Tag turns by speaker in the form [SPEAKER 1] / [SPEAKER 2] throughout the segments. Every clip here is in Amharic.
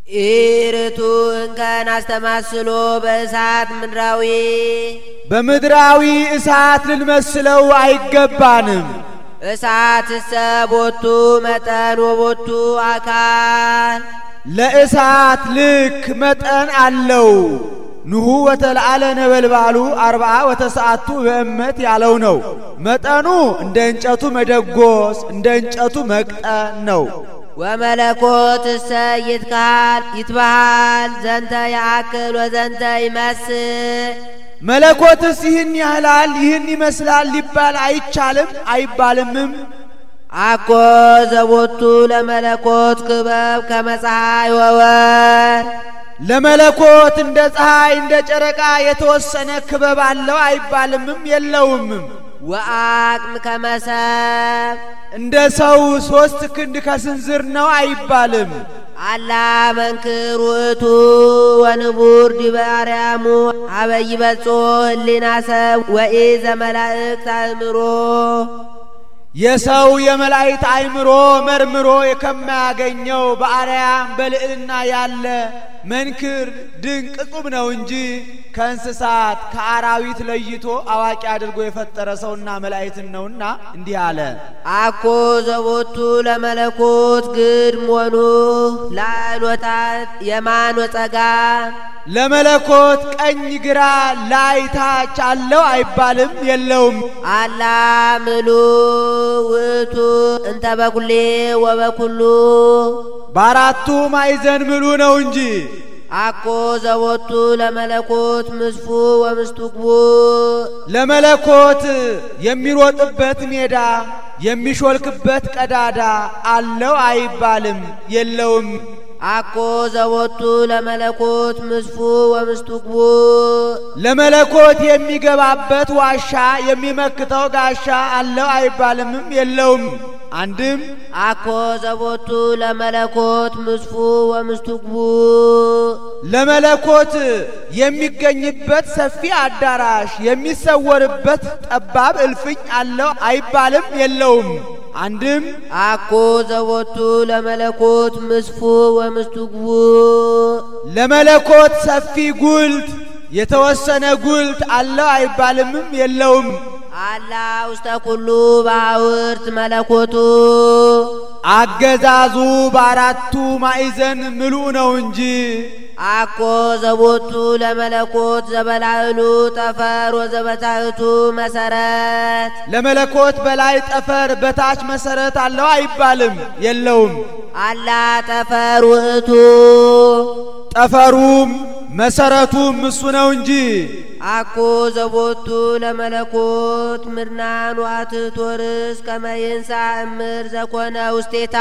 [SPEAKER 1] ኢርቱ እንከን አስተማስሎ በእሳት ምድራዊ
[SPEAKER 2] በምድራዊ እሳት ልንመስለው አይገባንም።
[SPEAKER 1] እሳት ሰቦቱ መጠን ወቦቱ አካል
[SPEAKER 2] ለእሳት ልክ መጠን አለው። ንሁ ወተልዓለ ነበልባሉ 40 ወተሰዓቱ በእመት ያለው ነው። መጠኑ እንደ እንጨቱ መደጎስ እንደ እንጨቱ መቅጠን ነው።
[SPEAKER 1] ወመለኮት ሰይትካል ይትበሃል ዘንተ ያአክል ወዘንተ ይመስል
[SPEAKER 2] መለኮትስ ይህን ያህላል ይህን ይመስላል ሊባል አይቻልም አይባልምም።
[SPEAKER 1] አኮ ዘቦቱ ለመለኮት ክበብ ከመፀሐይ ወወር
[SPEAKER 2] ለመለኮት እንደ ፀሐይ እንደ ጨረቃ የተወሰነ ክበብ አለው አይባልምም የለውምም።
[SPEAKER 1] ወአቅም ከመሰብ
[SPEAKER 2] እንደ ሰው 3 ክንድ ከስንዝር ነው አይባልም።
[SPEAKER 1] አላ መንክር ውእቱ ወንቡር ዲበ አርያሙ አበይ በጾ ህሊና ሰብ ወኢዘ መላእክት አእምሮ
[SPEAKER 2] የሰው የመላእክት አእምሮ መርምሮ ከማያገኘው በአርያም በልዕልና ያለ መንክር ድንቅ ቁም ነው እንጂ ከእንስሳት ከአራዊት ለይቶ አዋቂ አድርጎ የፈጠረ ሰውና መላእክትን ነውና እንዲህ አለ።
[SPEAKER 1] አኮ ዘቦቱ ለመለኮት ግድም ወኑ ላዕሎታት የማን ወጸጋም
[SPEAKER 2] ለመለኮት ቀኝ ግራ ላይ ታች አለው አይባልም የለውም።
[SPEAKER 1] አላ ምሉ ውእቱ እንተ በኩሌ ወበኩሉ
[SPEAKER 2] በአራቱ ማዕዘን ምሉ ነው እንጂ።
[SPEAKER 1] አኮ ዘቦቱ ለመለኮት ምስፉ ወምስቱቅቡ
[SPEAKER 2] ለመለኮት የሚሮጥበት ሜዳ የሚሾልክበት ቀዳዳ አለው አይባልም የለውም።
[SPEAKER 1] አኮ ዘቦቱ ለመለኮት ምስፉ ወምስቱቅቡ
[SPEAKER 2] ለመለኮት የሚገባበት ዋሻ የሚመክተው ጋሻ አለው አይባልምም የለውም። አንድም
[SPEAKER 1] አኮ ዘቦቱ ለመለኮት ምስፉ ወምስቱቅቡ
[SPEAKER 2] ለመለኮት የሚገኝበት ሰፊ አዳራሽ የሚሰወርበት ጠባብ እልፍኝ አለው አይባልም የለውም። አንድም
[SPEAKER 1] አኮ ዘቦቱ ለመለኮት ምስፉ ወምስቱቅቡ
[SPEAKER 2] ለመለኮት ሰፊ ጉልት የተወሰነ ጉልት አለው አይባልምም የለውም።
[SPEAKER 1] አላ ውስተ ኩሉ ባውርት መለኮቱ
[SPEAKER 2] አገዛዙ በአራቱ ማዕዘን ምሉ ነው እንጂ።
[SPEAKER 1] አኮ ዘቦቱ ለመለኮት ዘበላዕሉ ጠፈር ወዘበታሕቱ መሰረት
[SPEAKER 2] ለመለኮት በላይ ጠፈር በታች መሰረት አለው አይባልም የለውም።
[SPEAKER 1] አላ ጠፈር ውእቱ
[SPEAKER 2] ጠፈሩም መሰረቱም እሱ ነው እንጂ።
[SPEAKER 1] አኮ ዘቦቱ ለመለኮት ምድናን ዋትቶርስ ከመይንሳ እምር ዘኮነ ውስቴታ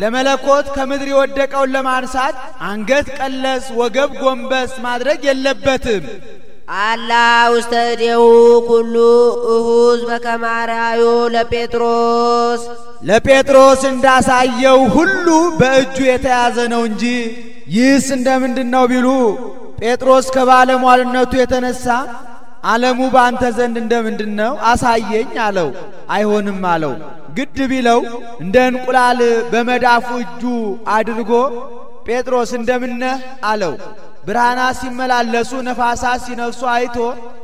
[SPEAKER 2] ለመለኮት ከምድር የወደቀውን ለማንሳት አንገት ቀለስ ወገብ ጎንበስ ማድረግ የለበትም።
[SPEAKER 1] አላ ውስተ እዴሁ ኩሉ እሁዝ በከመ አርአዮ ለጴጥሮስ
[SPEAKER 2] ለጴጥሮስ እንዳሳየው ሁሉ በእጁ የተያዘ ነው እንጂ። ይህስ እንደምንድነው ቢሉ ጴጥሮስ ከባለሟልነቱ የተነሳ ዓለሙ ባንተ ዘንድ እንደምንድነው አሳየኝ አለው። አይሆንም አለው። ግድ ቢለው እንደ እንቁላል በመዳፉ እጁ አድርጎ ጴጥሮስ እንደምነህ አለው። ብርሃናት ሲመላለሱ ነፋሳት ሲነፍሱ አይቶ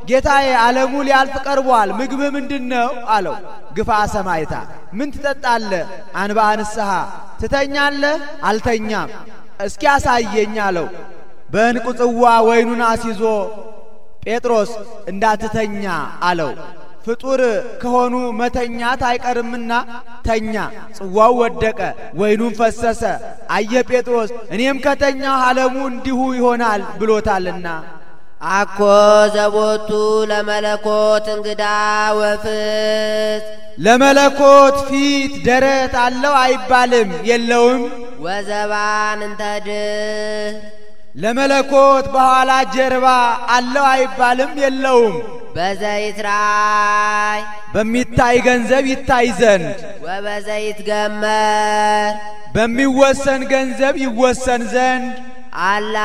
[SPEAKER 2] ጌታዬ ዓለሙ ሊያልፍ ቀርቧል፣ ምግብ ምንድነው አለው። ግፋ ሰማይታ ምን ትጠጣለህ? አንባ ንስሐ ትተኛለህ? አልተኛም። እስኪ አሳየኝ አለው። በእንቁ ጽዋ ወይኑን አስይዞ ጴጥሮስ እንዳትተኛ አለው። ፍጡር ከሆኑ መተኛት አይቀርምና ተኛ። ጽዋው ወደቀ፣ ወይኑን ፈሰሰ። አየ ጴጥሮስ እኔም ከተኛው ዓለሙ እንዲሁ ይሆናል ብሎታልና።
[SPEAKER 1] አኮ ዘቦቱ ለመለኮት እንግዳ ወፍት
[SPEAKER 2] ለመለኮት ፊት ደረት አለው አይባልም የለውም።
[SPEAKER 1] ወዘባን እንተድህ
[SPEAKER 2] ለመለኮት በኋላ ጀርባ አለው አይባልም የለውም።
[SPEAKER 1] በዘይት ራይ
[SPEAKER 2] በሚታይ ገንዘብ ይታይ ዘንድ
[SPEAKER 1] ወበዘይት ገመር
[SPEAKER 2] በሚወሰን ገንዘብ ይወሰን ዘንድ
[SPEAKER 1] አላ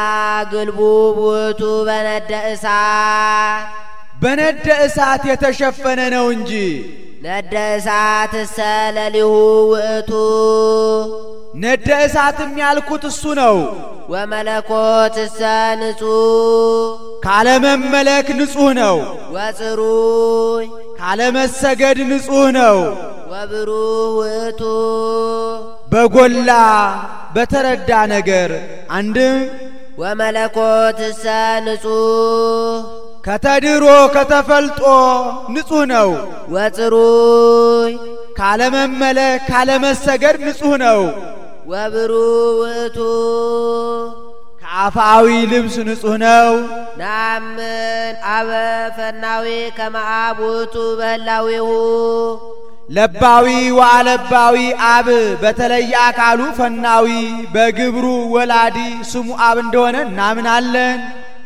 [SPEAKER 1] ግልቡ ውእቱ በነደ እሳት
[SPEAKER 2] በነደ እሳት የተሸፈነ ነው እንጂ።
[SPEAKER 1] ነደ እሳት ሰለሊሁ ውእቱ
[SPEAKER 2] ነደ እሳትም ያልኩት እሱ ነው።
[SPEAKER 1] ወመለኮትሰ ንጹሕ
[SPEAKER 2] ካለመመለክ ንጹሕ ነው።
[SPEAKER 1] ወጽሩይ
[SPEAKER 2] ካለመሰገድ ንጹሕ ነው።
[SPEAKER 1] ወብሩህ ውእቱ
[SPEAKER 2] በጎላ በተረዳ ነገር አንድም
[SPEAKER 1] ወመለኮትሰ ንጹሕ
[SPEAKER 2] ከተድሮ ከተፈልጦ ንጹሕ ነው።
[SPEAKER 1] ወጽሩይ
[SPEAKER 2] ካለመመለክ ካለመሰገድ ንጹሕ ነው።
[SPEAKER 1] ወብሩህ ውእቱ
[SPEAKER 2] ከአፋዊ ልብስ ንጹሕ ነው።
[SPEAKER 1] ናምን አበ ፈናዊ ከመ አብ ውእቱ በህላዌሁ
[SPEAKER 2] ለባዊ ወአለባዊ አብ በተለየ አካሉ ፈናዊ በግብሩ ወላዲ ስሙ አብ እንደሆነ እናምናለን።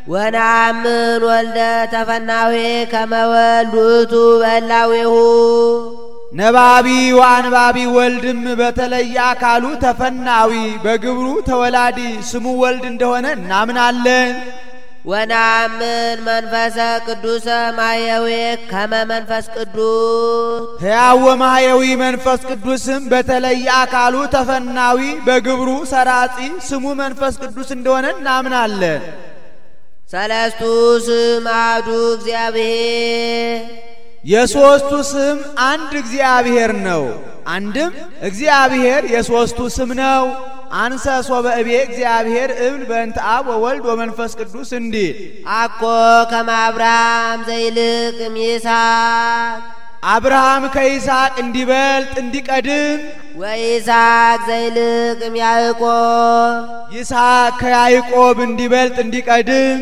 [SPEAKER 1] ወናምን ወልደ ተፈናዊ ከመ ወልድ ውእቱ በህላዌሁ
[SPEAKER 2] ነባቢ ወአንባቢ ወልድም በተለየ አካሉ ተፈናዊ በግብሩ ተወላዲ ስሙ ወልድ እንደሆነ እናምናለን።
[SPEAKER 1] ወናምን መንፈሰ ቅዱሰ ማየዊ ከመ መንፈስ ቅዱስ
[SPEAKER 2] ሕያው ወማየዊ መንፈስ ቅዱስም በተለየ አካሉ ተፈናዊ በግብሩ ሰራጺ ስሙ መንፈስ ቅዱስ እንደሆነ እናምናለን።
[SPEAKER 1] ሰለስቱ ስም አሐዱ እግዚአብሔር
[SPEAKER 2] የሶስቱ ስም አንድ እግዚአብሔር ነው። አንድም እግዚአብሔር የሶስቱ ስም ነው። አንሰ ሶበ እቤ እግዚአብሔር እብል በእንተ አብ ወወልድ ወመንፈስ ቅዱስ እንዲል
[SPEAKER 1] አኮ ከመ አብርሃም ዘይልቅ እምይስሐቅ
[SPEAKER 2] አብርሃም ከይስሐቅ እንዲበልጥ እንዲቀድም
[SPEAKER 1] ወይስሐቅ ዘይልቅ እምያዕቆብ
[SPEAKER 2] ይስሐቅ ከያዕቆብ እንዲበልጥ እንዲቀድም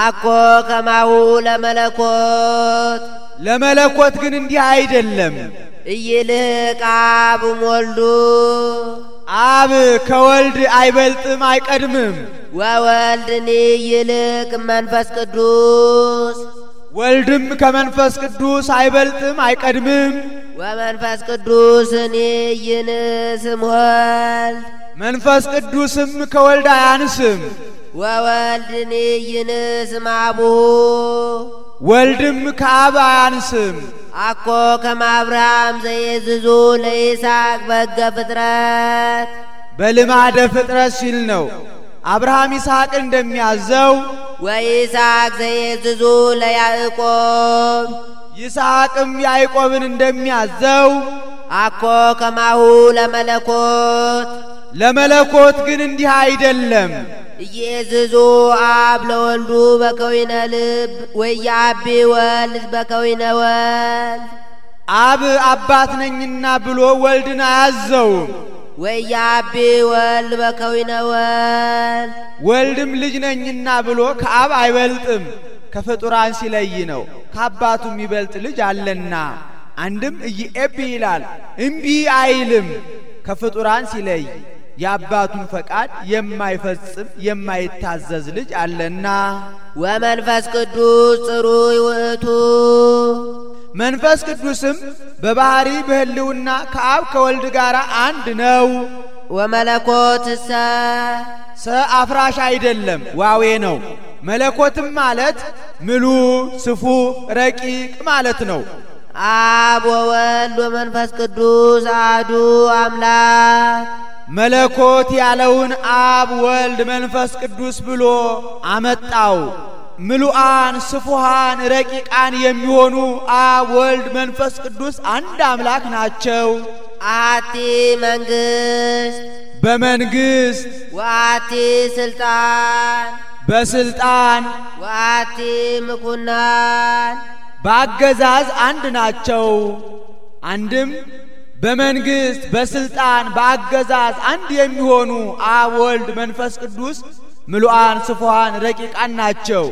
[SPEAKER 1] አኮ ከማሁ ለመለኮት
[SPEAKER 2] ለመለኮት ግን እንዲህ አይደለም።
[SPEAKER 1] ኢይልህቅ አብ እምወልዱ
[SPEAKER 2] አብ ከወልድ አይበልጥም አይቀድምም።
[SPEAKER 1] ወወልድኒ ኢይልቅ መንፈስ ቅዱስ
[SPEAKER 2] ወልድም ከመንፈስ ቅዱስ አይበልጥም አይቀድምም።
[SPEAKER 1] ወመንፈስ ቅዱስኒ ኢይንስም ወልድ
[SPEAKER 2] መንፈስ ቅዱስም ከወልድ አያንስም።
[SPEAKER 1] ወወልድኒ ኢይንስም አቡሁ
[SPEAKER 2] ወልድም ከአብ አያንስም።
[SPEAKER 1] አኮ ከመ አብርሃም ዘየዝዙ ለይስሐቅ በሕገ ፍጥረት
[SPEAKER 2] በልማደ ፍጥረት ሲል ነው። አብርሃም ይስሐቅ እንደሚያዘው
[SPEAKER 1] ወይስሐቅ ዘየዝዙ ለያዕቆብ
[SPEAKER 2] ይስሐቅም ያዕቆብን እንደሚያዘው
[SPEAKER 1] አኮ ከማሁ ለመለኮት
[SPEAKER 2] ለመለኮት ግን እንዲህ አይደለም።
[SPEAKER 1] ኢየዝዙ አብ ለወልዱ በከዊነ ልብ ወያቢ ወልድ በከዊነ ወልድ
[SPEAKER 2] አብ አባት ነኝና ብሎ ወልድን አያዘውም።
[SPEAKER 1] ወያቢ ወልድ በከዊነ ወልድ
[SPEAKER 2] ወልድም ልጅ ነኝና ብሎ ከአብ አይበልጥም። ከፍጡራን ሲለይ ነው። ከአባቱ የሚበልጥ ልጅ አለና አንድም ኢየኤቢ ይላል እምቢ አይልም። ከፍጡራን ሲለይ የአባቱን ፈቃድ የማይፈጽም የማይታዘዝ ልጅ አለና
[SPEAKER 1] ወመንፈስ ቅዱስ ጽሩይ ውእቱ
[SPEAKER 2] መንፈስ ቅዱስም በባህሪ በህልውና ከአብ ከወልድ ጋር አንድ ነው።
[SPEAKER 1] ወመለኮትሰ
[SPEAKER 2] አፍራሽ አይደለም ዋዌ ነው። መለኮትም ማለት ምሉ ስፉ ረቂቅ ማለት ነው።
[SPEAKER 1] አብ ወወልድ ወመንፈስ ቅዱስ አሐዱ አምላክ
[SPEAKER 2] መለኮት ያለውን አብ ወልድ መንፈስ ቅዱስ ብሎ አመጣው። ምሉአን ስፉሃን ረቂቃን የሚሆኑ አብ ወልድ መንፈስ ቅዱስ አንድ አምላክ ናቸው።
[SPEAKER 1] አሐቲ መንግስት
[SPEAKER 2] በመንግስት
[SPEAKER 1] ወአሐቲ ስልጣን
[SPEAKER 2] በስልጣን
[SPEAKER 1] ወአሐቲ ምኩናን
[SPEAKER 2] በአገዛዝ አንድ ናቸው። አንድም በመንግስት በስልጣን በአገዛዝ አንድ የሚሆኑ አብ ወልድ መንፈስ ቅዱስ ምሉአን ስፉሃን ረቂቃን ናቸው።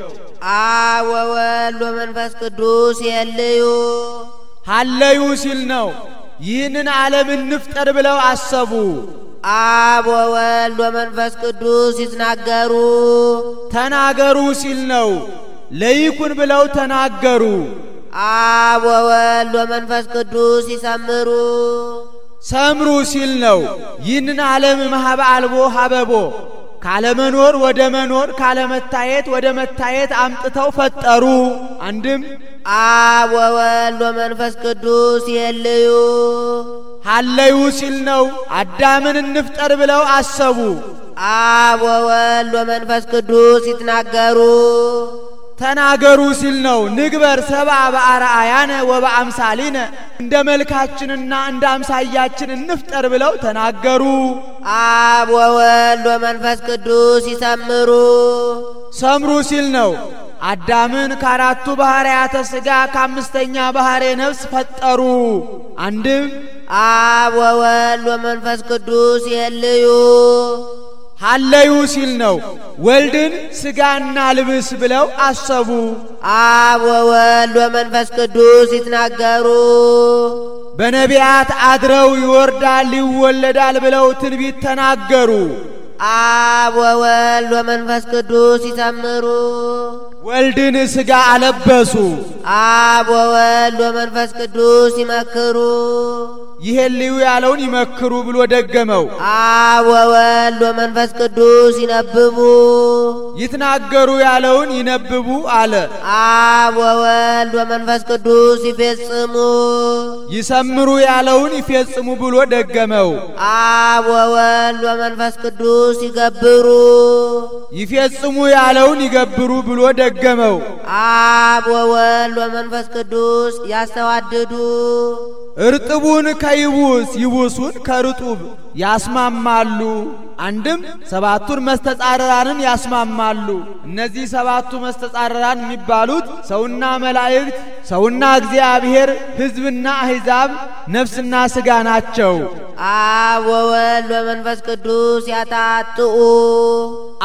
[SPEAKER 1] አብ ወወልድ ወመንፈስ ቅዱስ የልዩ
[SPEAKER 2] ሀለዩ ሲል ነው። ይህንን ዓለም እንፍጠር ብለው አሰቡ።
[SPEAKER 1] አብ ወወልድ ወመንፈስ ቅዱስ ይትናገሩ
[SPEAKER 2] ተናገሩ ሲል ነው። ለይኩን ብለው ተናገሩ።
[SPEAKER 1] አብ ወወልድ ወመንፈስ ቅዱስ ይሰምሩ
[SPEAKER 2] ሰምሩ ሲል ነው። ይህንን ዓለም ማህበ አልቦ ሀበቦ ካለመኖር ወደ መኖር ካለመታየት ወደ መታየት አምጥተው ፈጠሩ። አንድም
[SPEAKER 1] አብ ወወልድ ወመንፈስ ቅዱስ የልዩ
[SPEAKER 2] ሀለዩ ሲል ነው። አዳምን እንፍጠር ብለው አሰቡ።
[SPEAKER 1] አብ ወወልድ ወመንፈስ ቅዱስ ይትናገሩ
[SPEAKER 2] ተናገሩ ሲል ነው። ንግበር ሰብአ በአርአያነ ወበአምሳሊነ እንደ መልካችንና እንደ አምሳያችን እንፍጠር ብለው ተናገሩ።
[SPEAKER 1] አብ ወወልድ ወመንፈስ ቅዱስ ይሰምሩ
[SPEAKER 2] ሰምሩ ሲል ነው። አዳምን ከአራቱ ባህርያተ ሥጋ ከአምስተኛ ባህሬ ነፍስ ፈጠሩ። አንድም
[SPEAKER 1] አብ ወወልድ ወመንፈስ ቅዱስ የልዩ
[SPEAKER 2] ሀለዩ ሲል ነው። ወልድን ሥጋና ልብስ ብለው አሰቡ።
[SPEAKER 1] አብ ወወልድ ወመንፈስ ቅዱስ ይትናገሩ
[SPEAKER 2] በነቢያት አድረው ይወርዳል ይወለዳል ብለው ትንቢት ተናገሩ።
[SPEAKER 1] አብ ወወልድ ወመንፈስ ቅዱስ ይሰምሩ
[SPEAKER 2] ወልድን ሥጋ አለበሱ።
[SPEAKER 1] አብ ወወልድ ወመንፈስ ቅዱስ ይመክሩ
[SPEAKER 2] ይሄን ልዩ ያለውን ይመክሩ ብሎ ደገመው።
[SPEAKER 1] አብ ወወልድ ወመንፈስ ቅዱስ ይነብቡ
[SPEAKER 2] ይትናገሩ ያለውን ይነብቡ አለ።
[SPEAKER 1] አብ ወወልድ ወመንፈስ ቅዱስ ይፈጽሙ
[SPEAKER 2] ይሰምሩ ያለውን ይፈጽሙ ብሎ ደገመው።
[SPEAKER 1] አብ ወወልድ ወመንፈስ ቅዱስ ይገብሩ
[SPEAKER 2] ይፈጽሙ ያለውን ይገብሩ ብሎ ደገመው።
[SPEAKER 1] አብ ወወልድ ወመንፈስ ቅዱስ ያስተዋድዱ
[SPEAKER 2] እርጥቡን ከይቡስ ይቡሱን ከርጡብ ያስማማሉ። አንድም ሰባቱን መስተጻረራንን ያስማማሉ። እነዚህ ሰባቱ መስተጻረራን የሚባሉት ሰውና መላእክት፣ ሰውና እግዚአብሔር፣ ሕዝብና አሕዛብ፣ ነፍስና ሥጋ ናቸው።
[SPEAKER 1] አብ ወወልድ ወመንፈስ ቅዱስ ያታጥኡ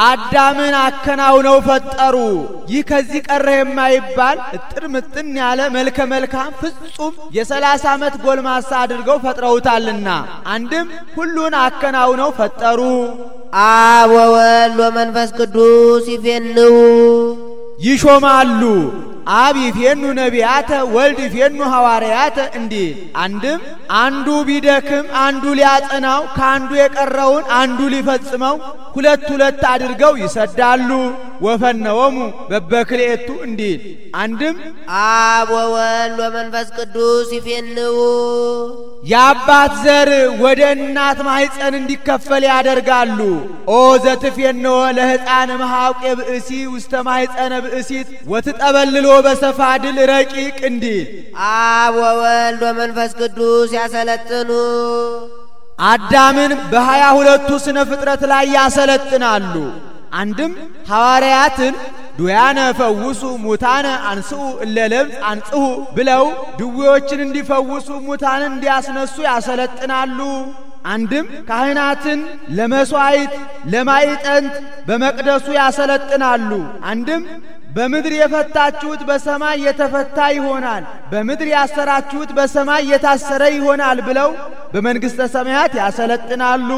[SPEAKER 2] አዳምን አከናውነው ፈጠሩ። ይህ ከዚህ ቀረ የማይባል እጥር ምጥን ያለ መልከ መልካም ፍጹም የ30 ዓመት ጎልማሳ አድርገው ፈጥረውታልና አንድም ሁሉን አከናውነው ፈጠሩ።
[SPEAKER 1] አብ ወወልድ ወመንፈስ ቅዱስ ይፌንው
[SPEAKER 2] ይሾማሉ። አብ ይፌኑ ነቢያተ ወልድ ይፌኑ ሐዋርያተ እንዲል አንድም አንዱ ቢደክም አንዱ ሊያጸናው ከአንዱ የቀረውን አንዱ ሊፈጽመው ሁለት ሁለት አድርገው ይሰዳሉ። ወፈነወሙ በበክልኤቱ እንዲል አንድም
[SPEAKER 1] አብ ወወልድ ወመንፈስ ቅዱስ ይፌንው
[SPEAKER 2] የአባት ዘር ወደ እናት ማኅፀን እንዲከፈል ያደርጋሉ። ኦ ዘትፌንዎ ለሕፃን መሐውቄ ብእሲ ውስተ ማኅፀነ ብእሲት ወትጠበልሎ በሰፋድል ረቂቅ እንዲል
[SPEAKER 1] አብ ወወልድ ወመንፈስ ቅዱስ ያሰለጥኑ
[SPEAKER 2] አዳምን በ22ቱ ስነ ፍጥረት ላይ ያሰለጥናሉ። አንድም ሐዋርያትን ዱያነ ፈውሱ ሙታነ አንስኡ እለለምጽ አንጽሁ ብለው ድዌዎችን እንዲፈውሱ ሙታንን እንዲያስነሱ ያሰለጥናሉ። አንድም ካህናትን ለመስዋዕት ለማዕጠንት በመቅደሱ ያሰለጥናሉ። አንድም በምድር የፈታችሁት በሰማይ የተፈታ ይሆናል፣ በምድር ያሰራችሁት በሰማይ የታሰረ ይሆናል ብለው በመንግሥተ ሰማያት ያሰለጥናሉ።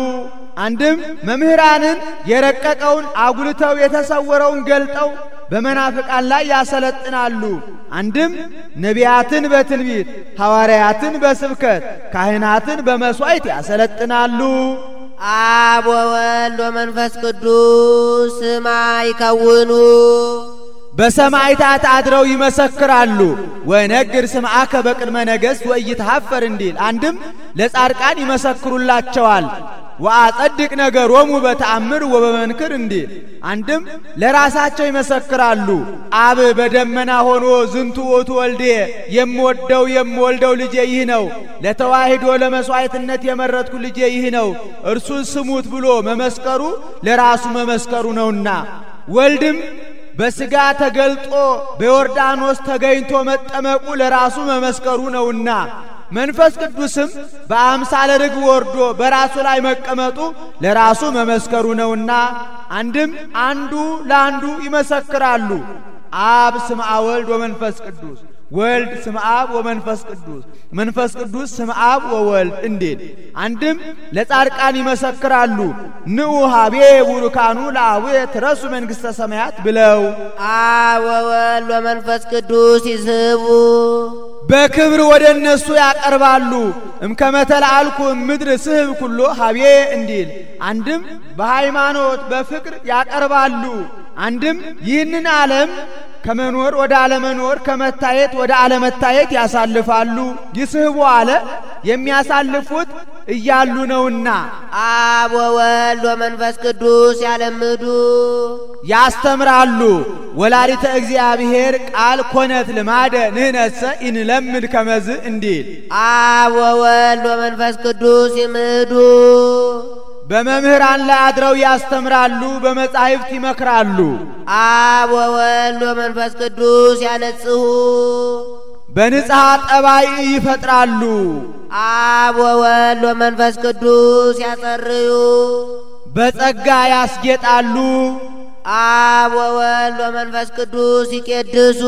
[SPEAKER 2] አንድም መምህራንን የረቀቀውን አጉልተው የተሰወረውን ገልጠው በመናፍቃን ላይ ያሰለጥናሉ። አንድም ነቢያትን በትንቢት ሐዋርያትን በስብከት ካህናትን በመስዋዕት ያሰለጥናሉ።
[SPEAKER 1] አብ ወወልድ ወመንፈስ ቅዱስ ስማ ይከውኑ
[SPEAKER 2] በሰማዕታት አድረው ይመሰክራሉ። ወነግር ስምዓከ በቅድመ ነገሥት ወኢይትሐፈር እንዲል አንድም ለጻድቃን ይመሰክሩላቸዋል። ወአጸድቅ ነገሮሙ በተአምር ወበመንክር እንዲል አንድም ለራሳቸው ይመሰክራሉ። አብ በደመና ሆኖ ዝንቱ ውእቱ ወልዴ የምወልደው ልጄ ይህ ነው፣ ለተዋሂዶ ለመስዋዕትነት የመረጥኩ ልጄ ይህ ነው፣ እርሱን ስሙት ብሎ መመስከሩ ለራሱ መመስከሩ ነውና ወልድም በሥጋ ተገልጦ በዮርዳኖስ ተገኝቶ መጠመቁ ለራሱ መመስከሩ ነውና መንፈስ ቅዱስም በአምሳለ ርግብ ወርዶ በራሱ ላይ መቀመጡ ለራሱ መመስከሩ ነውና አንድም አንዱ ለአንዱ ይመሰክራሉ። አብ ስምዐ ወልድ ወመንፈስ ቅዱስ ወልድ ስምዐ አብ ወመንፈስ ቅዱስ መንፈስ ቅዱስ ስምዐ አብ ወወልድ እንዲል አንድም ለጻድቃን ይመሰክራሉ። ንዑ ሀቤ ቡሩካኑ ለአቡየ ትረሱ መንግሥተ ሰማያት ብለው
[SPEAKER 1] አብ ወወልድ ወመንፈስ ቅዱስ ይስቡ
[SPEAKER 2] በክብር ወደ እነሱ ያቀርባሉ። እምከመተላልኩ ምድር ስህብ ኩሎ ሀቤ እንዲል አንድም በሃይማኖት በፍቅር ያቀርባሉ። አንድም ይህንን ዓለም ከመኖር ወደ አለመኖር ከመታየት ወደ አለመታየት ያሳልፋሉ። ይስህቡ አለ የሚያሳልፉት እያሉ ነውና
[SPEAKER 1] አብ ወወልድ ወመንፈስ ቅዱስ ያለምዱ
[SPEAKER 2] ያስተምራሉ። ወላዲተ እግዚአብሔር ቃል ኮነት ልማደ ንህነሰ ኢንለምድ ከመዝ እንዲል
[SPEAKER 1] አብ ወወልድ ወመንፈስ ቅዱስ ይምዱ
[SPEAKER 2] በመምህራን ላይ አድረው ያስተምራሉ፣ በመጻሕፍት ይመክራሉ።
[SPEAKER 1] አብ ወወልድ ወመንፈስ ቅዱስ ያነጽሁ
[SPEAKER 2] በንጽሐ ጠባይ ይፈጥራሉ።
[SPEAKER 1] አብ ወወልድ ወመንፈስ ቅዱስ ያጸርዩ
[SPEAKER 2] በጸጋ ያስጌጣሉ።
[SPEAKER 1] አብ ወወልድ ወመንፈስ ቅዱስ ይቄድሱ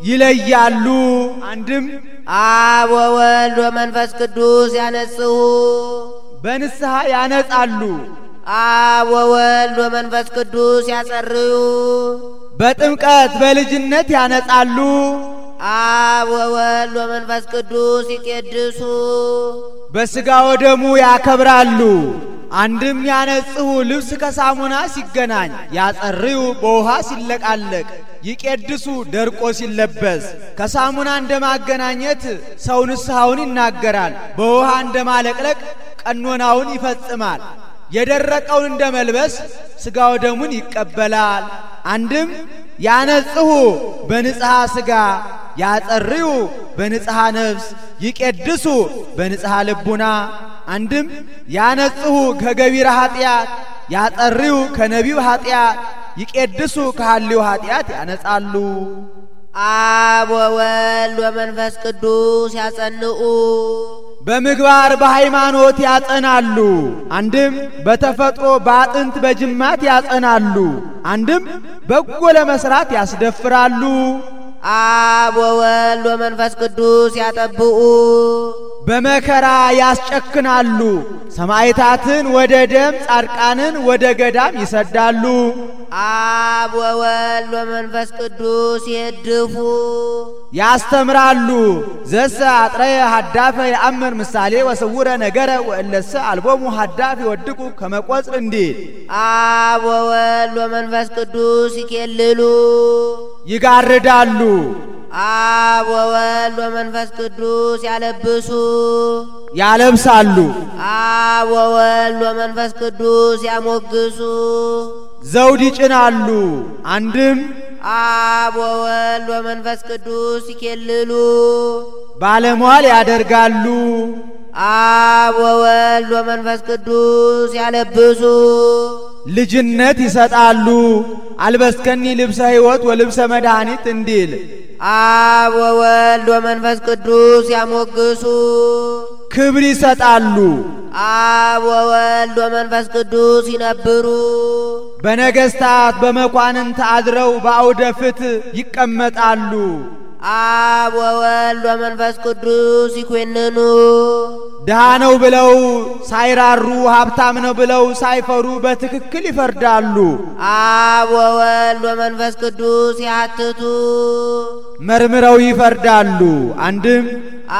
[SPEAKER 2] ይለያሉ። አንድም
[SPEAKER 1] አብ ወወልድ ወመንፈስ ቅዱስ ያነጽሁ
[SPEAKER 2] በንስሐ ያነጻሉ።
[SPEAKER 1] አብ ወወልድ ወመንፈስ ቅዱስ ያጸርዩ
[SPEAKER 2] በጥምቀት በልጅነት ያነጻሉ።
[SPEAKER 1] አብ ወወልድ ወመንፈስ ቅዱስ ይቄድሱ
[SPEAKER 2] በሥጋ ወደሙ ያከብራሉ። አንድም ያነጽሁ ልብስ ከሳሙና ሲገናኝ፣ ያጸርዩ በውሃ ሲለቃለቅ፣ ይቄድሱ ደርቆ ሲለበስ። ከሳሙና እንደማገናኘት ሰው ንስሐውን ይናገራል፣ በውሃ እንደማለቅለቅ ቀኖናውን ይፈጽማል። የደረቀውን እንደመልበስ ሥጋ ወደሙን ይቀበላል። አንድም ያነጽሁ በንጽሐ ሥጋ፣ ያጸርዩ በንጽሐ ነፍስ፣ ይቄድሱ በንጽሐ ልቡና። አንድም ያነጽሁ ከገቢረ ኃጢአት፣ ያጸርዩ ከነቢው ኃጢአት፣ ይቄድሱ ከሐልዮ ኃጢአት ያነጻሉ።
[SPEAKER 1] አብ ወወልድ ወመንፈስ ቅዱስ ያጸንኡ
[SPEAKER 2] በምግባር በሃይማኖት ያጸናሉ። አንድም በተፈጥሮ በአጥንት በጅማት ያጸናሉ። አንድም በጎ ለመስራት ያስደፍራሉ።
[SPEAKER 1] አብ ወወልድ ወመንፈስ ቅዱስ ያጠብኡ
[SPEAKER 2] በመከራ ያስጨክናሉ። ሰማዕታትን ወደ ደም ጻድቃንን ወደ ገዳም ይሰዳሉ።
[SPEAKER 1] አብ ወወልድ ወመንፈስ ቅዱስ ይድፉ
[SPEAKER 2] ያስተምራሉ። ዘሰ አጥረየ ሀዳፈ የአምር ምሳሌ ወስውረ ነገረ ወእለሰ አልቦሙ ሀዳፍ ይወድቁ ከመቆጽር እንዲል
[SPEAKER 1] አብ ወወልድ ወመንፈስ ቅዱስ ይኬልሉ
[SPEAKER 2] ይጋርዳሉ።
[SPEAKER 1] አብ ወወልድ ወመንፈስ ቅዱስ ያለብሱ
[SPEAKER 2] ያለብሳሉ።
[SPEAKER 1] አብ ወወልድ ወመንፈስ ቅዱስ ያሞግሱ
[SPEAKER 2] ዘውድ ይጭናሉ። አንድም
[SPEAKER 1] አብ ወወልድ ወመንፈስ ቅዱስ ይኬልሉ
[SPEAKER 2] ባለሟል ያደርጋሉ።
[SPEAKER 1] አብ ወወልድ ወመንፈስ ቅዱስ ያለብሱ
[SPEAKER 2] ልጅነት ይሰጣሉ። አልበስከኒ ልብሰ ሕይወት ወልብሰ መድኃኒት እንዲል
[SPEAKER 1] አብ ወወልድ ወመንፈስ ቅዱስ ያሞግሱ
[SPEAKER 2] ክብር ይሰጣሉ።
[SPEAKER 1] አብ ወወልድ ወመንፈስ ቅዱስ ይነብሩ
[SPEAKER 2] በነገስታት በመኳንንት አድረው በአውደ ፍትሕ ይቀመጣሉ።
[SPEAKER 1] አብ ወወልድ ወመንፈስ ቅዱስ ይኮንኑ
[SPEAKER 2] ድሃ ነው ብለው ሳይራሩ፣ ሀብታም ነው ብለው ሳይፈሩ በትክክል ይፈርዳሉ።
[SPEAKER 1] አብ ወወልድ ወመንፈስ ቅዱስ ያትቱ
[SPEAKER 2] መርምረው ይፈርዳሉ። አንድም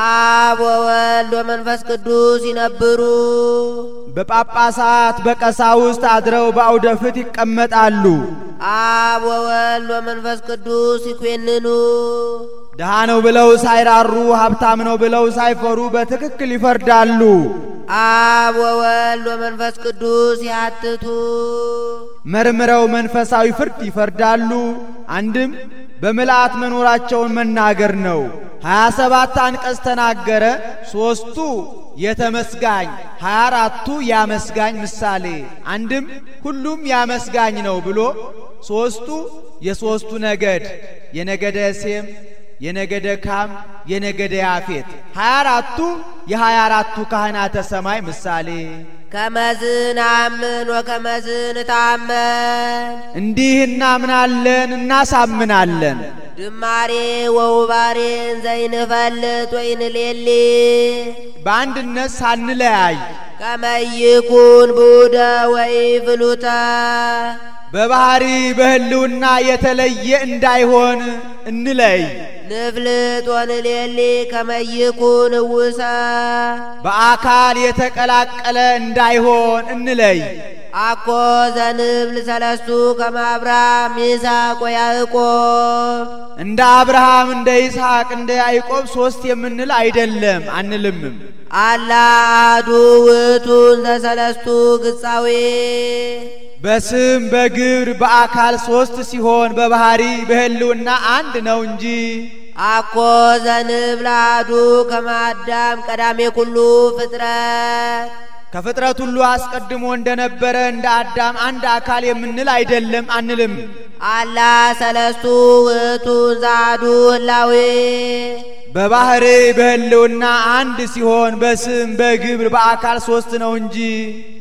[SPEAKER 1] አብ ወወልድ ወመንፈስ ቅዱስ ይነብሩ
[SPEAKER 2] በጳጳሳት በቀሳውስት አድረው በአውደ ፍትሕ ይቀመጣሉ።
[SPEAKER 1] አብ ወወልድ ወመንፈስ ቅዱስ ይኮንኑ
[SPEAKER 2] ድሃ ነው ብለው ሳይራሩ፣ ሀብታም ነው ብለው ሳይፈሩ በትክክል ይፈርዳሉ።
[SPEAKER 1] አብ ወወልድ ወመንፈስ ቅዱስ ያትቱ
[SPEAKER 2] መርምረው መንፈሳዊ ፍርድ ይፈርዳሉ። አንድም በምልአት መኖራቸውን መናገር ነው። 27 አንቀጽ ተናገረ። 3ቱ የተመስጋኝ 24ቱ ያመስጋኝ ምሳሌ። አንድም ሁሉም ያመስጋኝ ነው ብሎ 3ቱ የሦስቱ ነገድ የነገደ ሴም፣ የነገደ ካም፣ የነገደ ያፌት 24ቱ የ24ቱ ካህናተ ሰማይ ምሳሌ።
[SPEAKER 1] ከመዝን አምን ወከመዝን ታመን
[SPEAKER 2] እንዲህ እናምናለን እናሳምናለን።
[SPEAKER 1] ድማሬ ወውባሬን ዘይንፈልጥ ወይንሌሊ
[SPEAKER 2] በአንድነት ሳንለያይ
[SPEAKER 1] ከመይኩን ቡደ ወይፍሉተ በባህሪ በህልውና የተለየ እንዳይሆን እንለይ። ንፍልጥ ወንሌሊ ከመይኩን ውሰ
[SPEAKER 2] በአካል የተቀላቀለ እንዳይሆን እንለይ።
[SPEAKER 1] አኮ ዘንብል ሰለስቱ ከመ አብርሃም ይስሐቅ ወያዕቆብ
[SPEAKER 2] እንደ አብርሃም እንደ ይስሐቅ እንደ ያዕቆብ ሶስት የምንል አይደለም አንልምም።
[SPEAKER 1] አላ አሐዱ ውእቱ ዘሰለስቱ ግጻዌ
[SPEAKER 2] በስም በግብር በአካል ሶስት ሲሆን በባህሪ በህልውና አንድ ነው እንጂ።
[SPEAKER 1] አኮ ዘንብል አሐዱ ከመ አዳም ቀዳሜ ኩሉ ፍጥረት
[SPEAKER 2] ከፍጥረት ሁሉ አስቀድሞ እንደነበረ እንደ አዳም አንድ አካል የምንል አይደለም አንልም።
[SPEAKER 1] አላ ሰለስቱ ውእቱ ዘአሐዱ ህላዌ
[SPEAKER 2] በባህሪ በህልውና አንድ ሲሆን በስም በግብር በአካል ሶስት ነው እንጂ።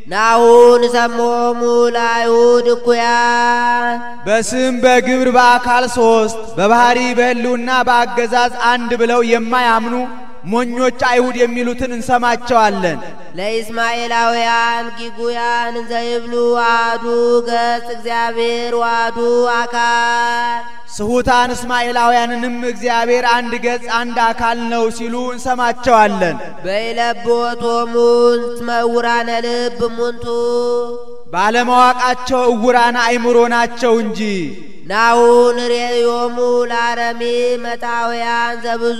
[SPEAKER 1] ናሁን ሰሞሙ ለአይሁድ እኩያን
[SPEAKER 2] በስም በግብር በአካል ሶስት በባህሪ በህልውና በአገዛዝ አንድ ብለው የማያምኑ ሞኞች አይሁድ የሚሉትን እንሰማቸዋለን።
[SPEAKER 1] ለኢስማኤላውያን ጊጉያን እንዘይብሉ አሐዱ ገጽ እግዚአብሔር ወአሐዱ አካል
[SPEAKER 2] ስሁታን እስማኤላውያንንም እግዚአብሔር አንድ ገጽ አንድ አካል ነው ሲሉ እንሰማቸዋለን።
[SPEAKER 1] በይለብዎቶሙ እስመ ዕውራነ ልብ እሙንቱ
[SPEAKER 2] ባለማወቃቸው ዕውራነ አእምሮ ናቸው እንጂ።
[SPEAKER 1] ናሁን ርእዮሙ ለአረሚ መጣውያን ዘብዙ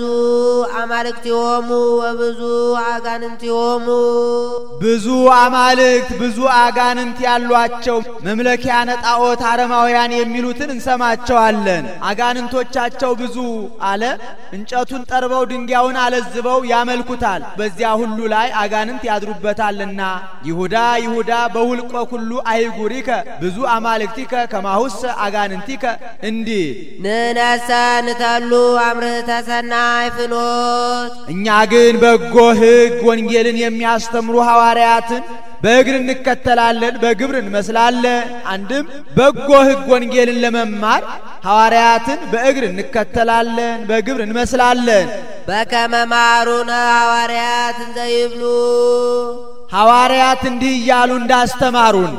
[SPEAKER 1] አማልክቲሆሙ ወብዙ አጋንንቲሆሙ
[SPEAKER 2] ብዙ አማልክት ብዙ አጋንንት ያሏቸው መምለኪያነ ጣዖት አረማውያን የሚሉትን እንሰማቸዋለን። አጋንንቶቻቸው ብዙ አለ። እንጨቱን ጠርበው ድንጋዩን አለዝበው ያመልኩታል። በዚያ ሁሉ ላይ አጋንንት ያድሩበታልና። ይሁዳ ይሁዳ በውልቆ ሁሉ አይጉሪከ ብዙ አማልክቲከ ከማሁሰ አጋንንቲ እንዲህ
[SPEAKER 1] ንነሰ ንተሉ አምርህተ ሰናይ ፍኖት
[SPEAKER 2] እኛ ግን በጎ ሕግ ወንጌልን የሚያስተምሩ ሐዋርያትን በእግር እንከተላለን፣ በግብር እንመስላለን። አንድም በጎ ሕግ ወንጌልን ለመማር ሐዋርያትን በእግር እንከተላለን፣ በግብር እንመስላለን።
[SPEAKER 1] በከመ መሃሩነ ሐዋርያት እንዘይብሉ
[SPEAKER 2] ሐዋርያት እንዲህ እያሉ እንዳስተማሩን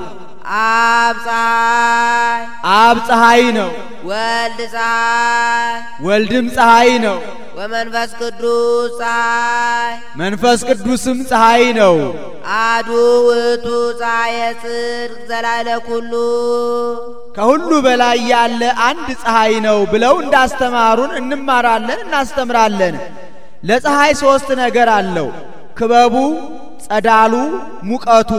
[SPEAKER 1] አብ ፀሐይ
[SPEAKER 2] አብ ፀሐይ ነው፣
[SPEAKER 1] ወልድ ፀሐይ
[SPEAKER 2] ወልድም ፀሐይ ነው፣
[SPEAKER 1] ወመንፈስ ቅዱስ ፀሐይ
[SPEAKER 2] መንፈስ ቅዱስም ፀሐይ ነው።
[SPEAKER 1] አሐዱ ውእቱ ፀሐየ ጽድቅ ዘላዕለ ኩሉ
[SPEAKER 2] ከሁሉ በላይ ያለ አንድ ፀሐይ ነው ብለው እንዳስተማሩን እንማራለን፣ እናስተምራለን። ለፀሐይ ሶስት ነገር አለው። ክበቡ፣ ጸዳሉ፣ ሙቀቱ።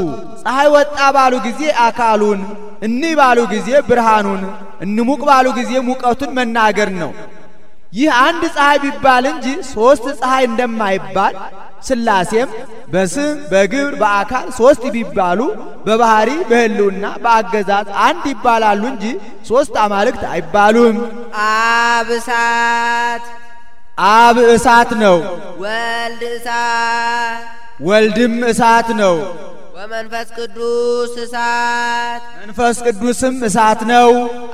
[SPEAKER 2] ፀሐይ ወጣ ባሉ ጊዜ አካሉን፣ እንይ ባሉ ጊዜ ብርሃኑን፣ እንሙቅ ባሉ ጊዜ ሙቀቱን መናገር ነው። ይህ አንድ ፀሐይ ቢባል እንጂ ሶስት ፀሐይ እንደማይባል ሥላሴም በስም በግብር በአካል ሶስት ቢባሉ በባህሪ በህልውና በአገዛዝ አንድ ይባላሉ እንጂ ሶስት አማልክት አይባሉም።
[SPEAKER 1] አብ እሳት
[SPEAKER 2] አብ እሳት ነው፣
[SPEAKER 1] ወልድ እሳት
[SPEAKER 2] ወልድም እሳት ነው፣
[SPEAKER 1] ወመንፈስ ቅዱስ እሳት
[SPEAKER 2] መንፈስ ቅዱስም እሳት ነው።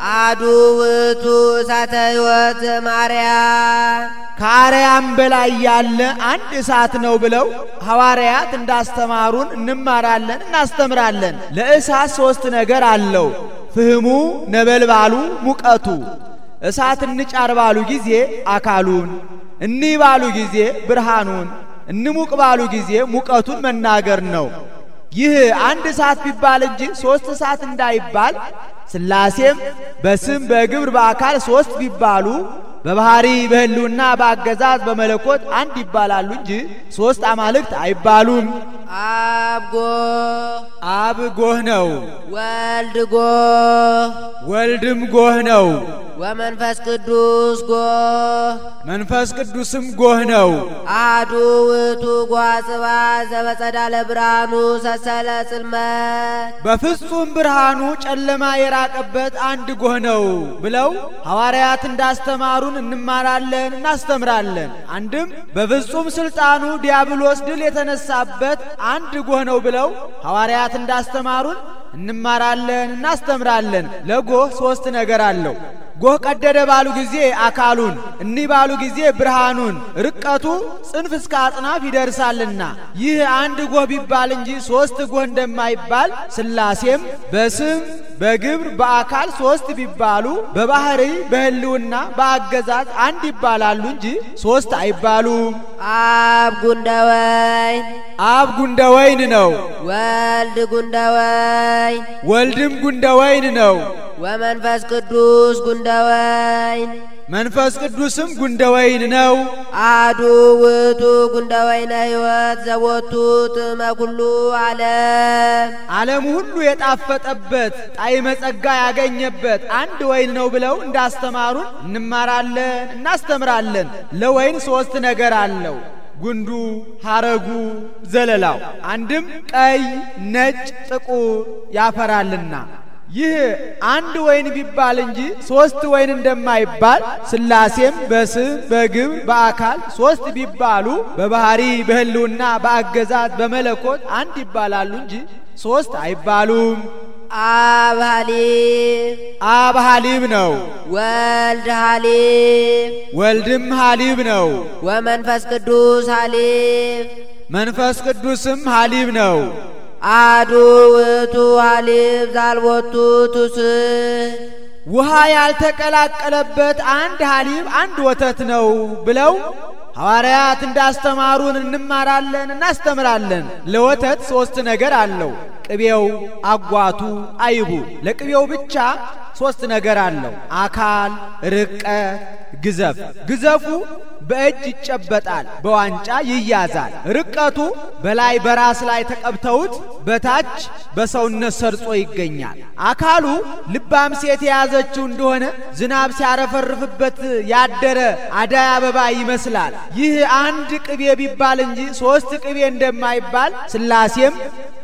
[SPEAKER 1] አሐዱ ውእቱ እሳተ ሕይወት ዘማርያም
[SPEAKER 2] ከአርያም በላይ ያለ አንድ እሳት ነው ብለው ሐዋርያት እንዳስተማሩን እንማራለን፣ እናስተምራለን። ለእሳት ሶስት ነገር አለው። ፍህሙ፣ ነበልባሉ፣ ሙቀቱ። እሳት እንጫር ባሉ ጊዜ አካሉን፣ እንይ ባሉ ጊዜ ብርሃኑን፣ እንሙቅ ባሉ ጊዜ ሙቀቱን መናገር ነው። ይህ አንድ እሳት ቢባል እንጂ ሶስት እሳት እንዳይባል ሥላሴም በስም በግብር በአካል ሶስት ቢባሉ በባህሪ በህልውና በአገዛዝ በመለኮት አንድ ይባላሉ እንጂ ሶስት አማልክት አይባሉም።
[SPEAKER 1] አብ ጎህ
[SPEAKER 2] አብ ጎህ ነው፣
[SPEAKER 1] ወልድ ጎህ
[SPEAKER 2] ወልድም ጎህ ነው፣
[SPEAKER 1] ወመንፈስ ቅዱስ ጎህ
[SPEAKER 2] መንፈስ ቅዱስም ጎህ ነው።
[SPEAKER 1] አሐዱ ውእቱ ጓጽባ ዘበጸዳለ ብርሃኑ ሰሰለ ጽልመት
[SPEAKER 2] በፍጹም ብርሃኑ ጨለማ የራቀበት አንድ ጎህ ነው ብለው ሐዋርያት እንዳስተማሩን እንማራለን፣ እናስተምራለን። አንድም በፍጹም ስልጣኑ ዲያብሎስ ድል የተነሳበት አንድ ጎህ ነው ብለው ሐዋርያት እንዳስተማሩን እንማራለን፣ እናስተምራለን። ለጎህ ሶስት ነገር አለው። ጎህ ቀደደ ባሉ ጊዜ አካሉን፣ እንይ ባሉ ጊዜ ብርሃኑን፣ ርቀቱ ጽንፍ እስከ አጽናፍ ይደርሳልና። ይህ አንድ ጎህ ቢባል እንጂ ሶስት ጎህ እንደማይባል ሥላሴም በስም በግብር በአካል ሶስት ቢባሉ በባህሪ በህልውና በአገዛዝ አንድ ይባላሉ እንጂ ሶስት አይባሉም።
[SPEAKER 1] አብ ጉንደወይን
[SPEAKER 2] አብ ጉንደወይን ነው።
[SPEAKER 1] ወልድ ጉንደወይን
[SPEAKER 2] ወልድም ጉንደወይን ነው።
[SPEAKER 1] ወመንፈስ ቅዱስ ጉንደወይን
[SPEAKER 2] መንፈስ ቅዱስም ጉንደወይን ነው።
[SPEAKER 1] አሐዱ ውእቱ ጉንደወይነ ሕይወት ዘቦቱ ጥዕመ ኩሉ ዓለም
[SPEAKER 2] ሁሉ የጣፈጠበት ጣዕመ ጸጋ ያገኘበት አንድ ወይን ነው ብለው እንዳስተማሩን እንማራለን እናስተምራለን። ለወይን ሶስት ነገር አለው። ጉንዱ፣ ሐረጉ፣ ዘለላው አንድም ቀይ፣ ነጭ፣ ጥቁር ያፈራልና ይህ አንድ ወይን ቢባል እንጂ ሶስት ወይን እንደማይባል ሥላሴም በስም በግብር በአካል ሶስት ቢባሉ በባህሪ በህልውና በአገዛዝ በመለኮት አንድ ይባላሉ እንጂ ሶስት አይባሉም። አብ ሐሊብ ነው።
[SPEAKER 1] ወልድ ሐሊብ
[SPEAKER 2] ወልድም ሐሊብ ነው።
[SPEAKER 1] ወመንፈስ ቅዱስ ሐሊብ
[SPEAKER 2] መንፈስ ቅዱስም ሐሊብ ነው።
[SPEAKER 1] አሐዱ ውእቱ ሐሊብ ዘአልቦቱ ትውስህ
[SPEAKER 2] ውሃ ያልተቀላቀለበት አንድ ሐሊብ አንድ ወተት ነው ብለው ሐዋርያት እንዳስተማሩን እንማራለን እናስተምራለን። ለወተት ሶስት ነገር አለው። ቅቤው፣ አጓቱ፣ አይቡ። ለቅቤው ብቻ ሶስት ነገር አለው። አካል፣ ርቀት፣ ግዘፍ። ግዘፉ በእጅ ይጨበጣል፣ በዋንጫ ይያዛል። ርቀቱ በላይ በራስ ላይ ተቀብተውት በታች በሰውነት ሰርጾ ይገኛል። አካሉ ልባም ሴት የያዘችው እንደሆነ ዝናብ ሲያረፈርፍበት ያደረ አዳይ አበባ ይመስላል። ይህ አንድ ቅቤ ቢባል እንጂ ሶስት ቅቤ እንደማይባል ሥላሴም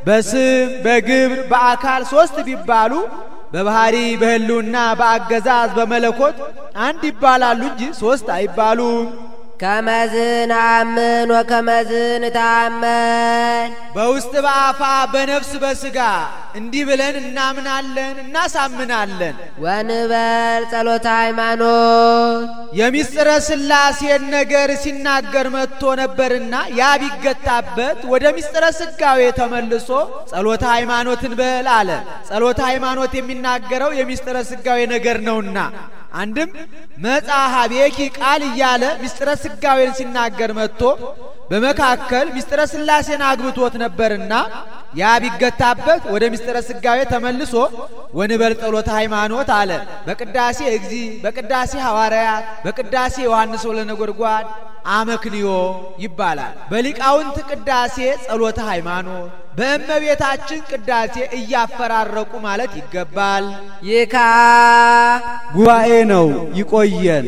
[SPEAKER 2] በስም በግብር በአካል ሶስት ቢባሉ በባህሪ በህልውና በአገዛዝ በመለኮት አንድ ይባላሉ እንጂ ሶስት አይባሉም።
[SPEAKER 1] ከመዝን አምን ወከመዝን ታመን
[SPEAKER 2] በውስጥ በአፋ በነፍስ በስጋ እንዲህ ብለን እናምናለን እናሳምናለን።
[SPEAKER 1] ወንበል ጸሎተ ሃይማኖት
[SPEAKER 2] የሚስጥረ ሥላሴን ነገር ሲናገር መጥቶ ነበርና ያ ቢገታበት ወደ ሚስጥረ ስጋዌ ተመልሶ ጸሎተ ሃይማኖትን በል አለ። ጸሎተ ሃይማኖት የሚናገረው የሚስጥረ ስጋዌ ነገር ነውና አንድም መጻሐቤኪ ቃል እያለ ሚስጥረ ስጋዌን ሲናገር መጥቶ በመካከል ሚስጥረ ሥላሴን አግብቶት ነበርና ያ ቢገታበት ወደ ሚስጥረ ስጋዌ ተመልሶ ወንበል ጸሎተ ሃይማኖት አለ። በቅዳሴ እግዚእ፣ በቅዳሴ ሐዋርያት፣ በቅዳሴ ዮሐንስ ወለነጎድጓድ አመክንዮ ይባላል። በሊቃውንት ቅዳሴ ጸሎተ ሃይማኖት፣ በእመቤታችን ቅዳሴ እያፈራረቁ ማለት ይገባል።
[SPEAKER 1] ይካ
[SPEAKER 2] ጉባኤ ነው። ይቆየን።